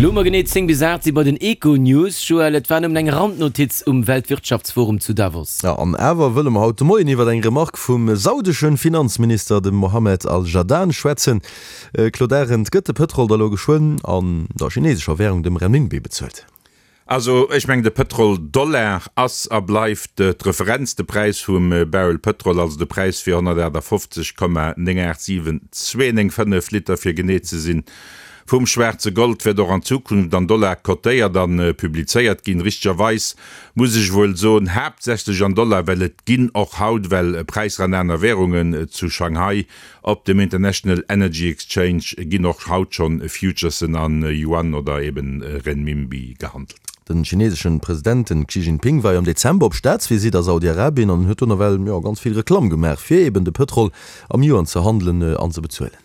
Elo hu mer genee 10 bis 8, si bei den Econews. Joël, et war nëmmen eng Randnotiz um Weltwirtschaftsforum zu Davos. Jo, an awer wëlle mer haut de Moien iwwer eng Remark vum saudesche Finanzminister, dem Mohammed Al-Jadaan, schwätzen. Claude Arend, gëtt de Pëtrol da lo geschwënn an der chinesescher Währung, dem Renminbi, bezuelt? Also ech mengen de Pëtrol-Dollar ass a bleift d'Referenz, de Präis vum Barrel Pëtrol, also de Präis fir 158,987295 Liter fir genee ze sinn, vum schwaarze Gold wäert och an Zukunft an Dollar cotéiert a publizéiert ginn. Richtegerweis muss ech wuel soen, haaptsächlech an Dollar, well et ginn och haut well Präisser an aner Währungen zu Shanghai Op dem International Energy Exchange ginn och haut schonn Futuresen an Yuan oder eben Renminbi gehandelt. Den chineseschen President, den Xi Jinping, war jo am Dezember op Staatsvisitt a Saudi-Arabien an huet do nawell, jo, ganz vill Reklamm gemaach fir eben de Pëtrol am Yuan ze handelen an ze bezuelen.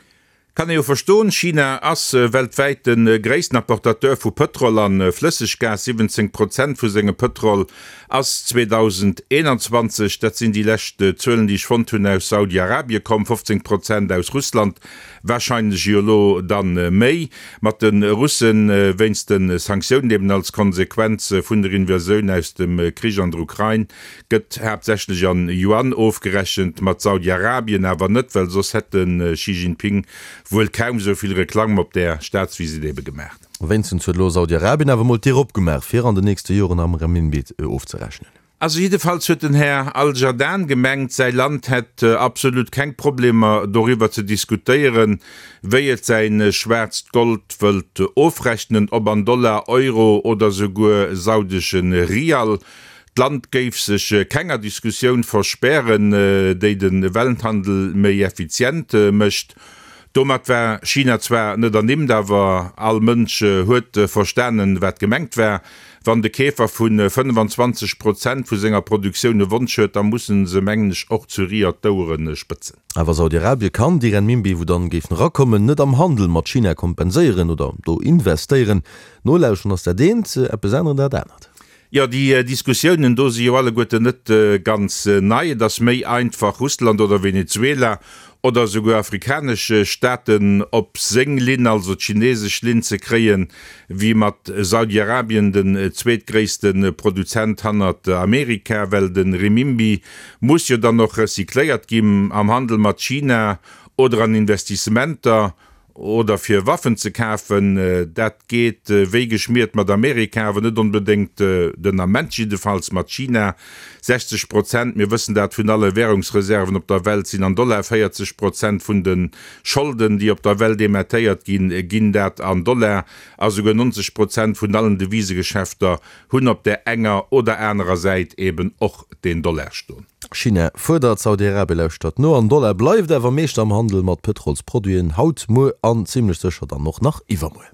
Kann ee jo verstoen, China ass weltwäit de gréissten Apportateur vu Pëtrol an Flësseggas, 17 Prozent vu sengem Pëtrol ass 2021, dat sinn déi lescht Zuelen, déi ech fonnt hunn, aus Saudi-Arabie komm, 15 Prozent aus Russland, warscheinlech jo elo dann méi, mat de Russe wéinst de Sanktiounen eben als Konsequenz vun der Invasioun aus dem Krich an der Ukrain, gëtt haaptsächlech an Yuan ofgerechent, mat Saudi-Arabien awer net, well soss hätt de Xi Jinping wuel kaum esou vill Reklamm op där Staatsvisitt ebe gemaach. Wéinstens huet elo Saudi-Arabien awer mol d'Dier opgemaach, fir an den nächste Joren am Renminbi ofzerechnen. Also jiddefalls huet den Här Al-Jadaan gemengt, säi Land hätt absolut keng Problemer doriwwer ze diskutéieren, wéi et säi schwaarzt Gold wëllt ofrechnen, ob an Dollar, Euro oder souguer saudesche Rial. D'Land géif sech kenger Diskussioun verspären, déi de Welthandel méi effizient mécht. Domat war China zwar net ernimmt, awer all Mënsch huet verstanen, wat gemengt war. Wann de Keefer vu 25 Prozent vu senger Produktioun e Wonsch huet, da mussen se, mengen ech, och zu Riyadh d'Ouere spëtzen. Awer Saudi-Arabie kann déi Renminbi, wou dann géifen erakommen, net am Handel mat China kompenséieren oder do investéieren. Nolauschteren ass dat eent, eppes änneren dat anert. Jo, déi Diskussiounen do si jo alleguerten net ganz nei. Et ass méi einfach, Russland oder Venezuela oder esouguer afrikanesch Staaten op seng Linn, also d'chinesesch Linn, ze kréien, wéi mat Saudi-Arabien, den zweetgréisste Produzent hannert Amerika. Well de Renminbi muss jo dann och recycléiert ginn am Handel mat China oder an Investissementer. Oder fir Waffen ze kafen. Dat geet wéi geschmiert mat Amerika, awer net onbedéngt, den Ament jiddefalls, mat China. 60 Prozent, mir wëssen dat, vun alle Währungsreserven op der Welt sinn an Dollar. 40 Prozent vun de Scholden, déi op der Welt emettéiert ginn, ginn dat an Dollar. A souguer 90 Prozent vun allen Devisegeschäfter hunn op där enger oder anerer Säit eben och den Dollar stoen. China fuerdert, Saudi-Arabie lauschtert no an Dollar bleift awer Meeschter am Handel mat Pëtrolsproduiten, haut, muer an zimlech sécher dann och nach iwwermuer.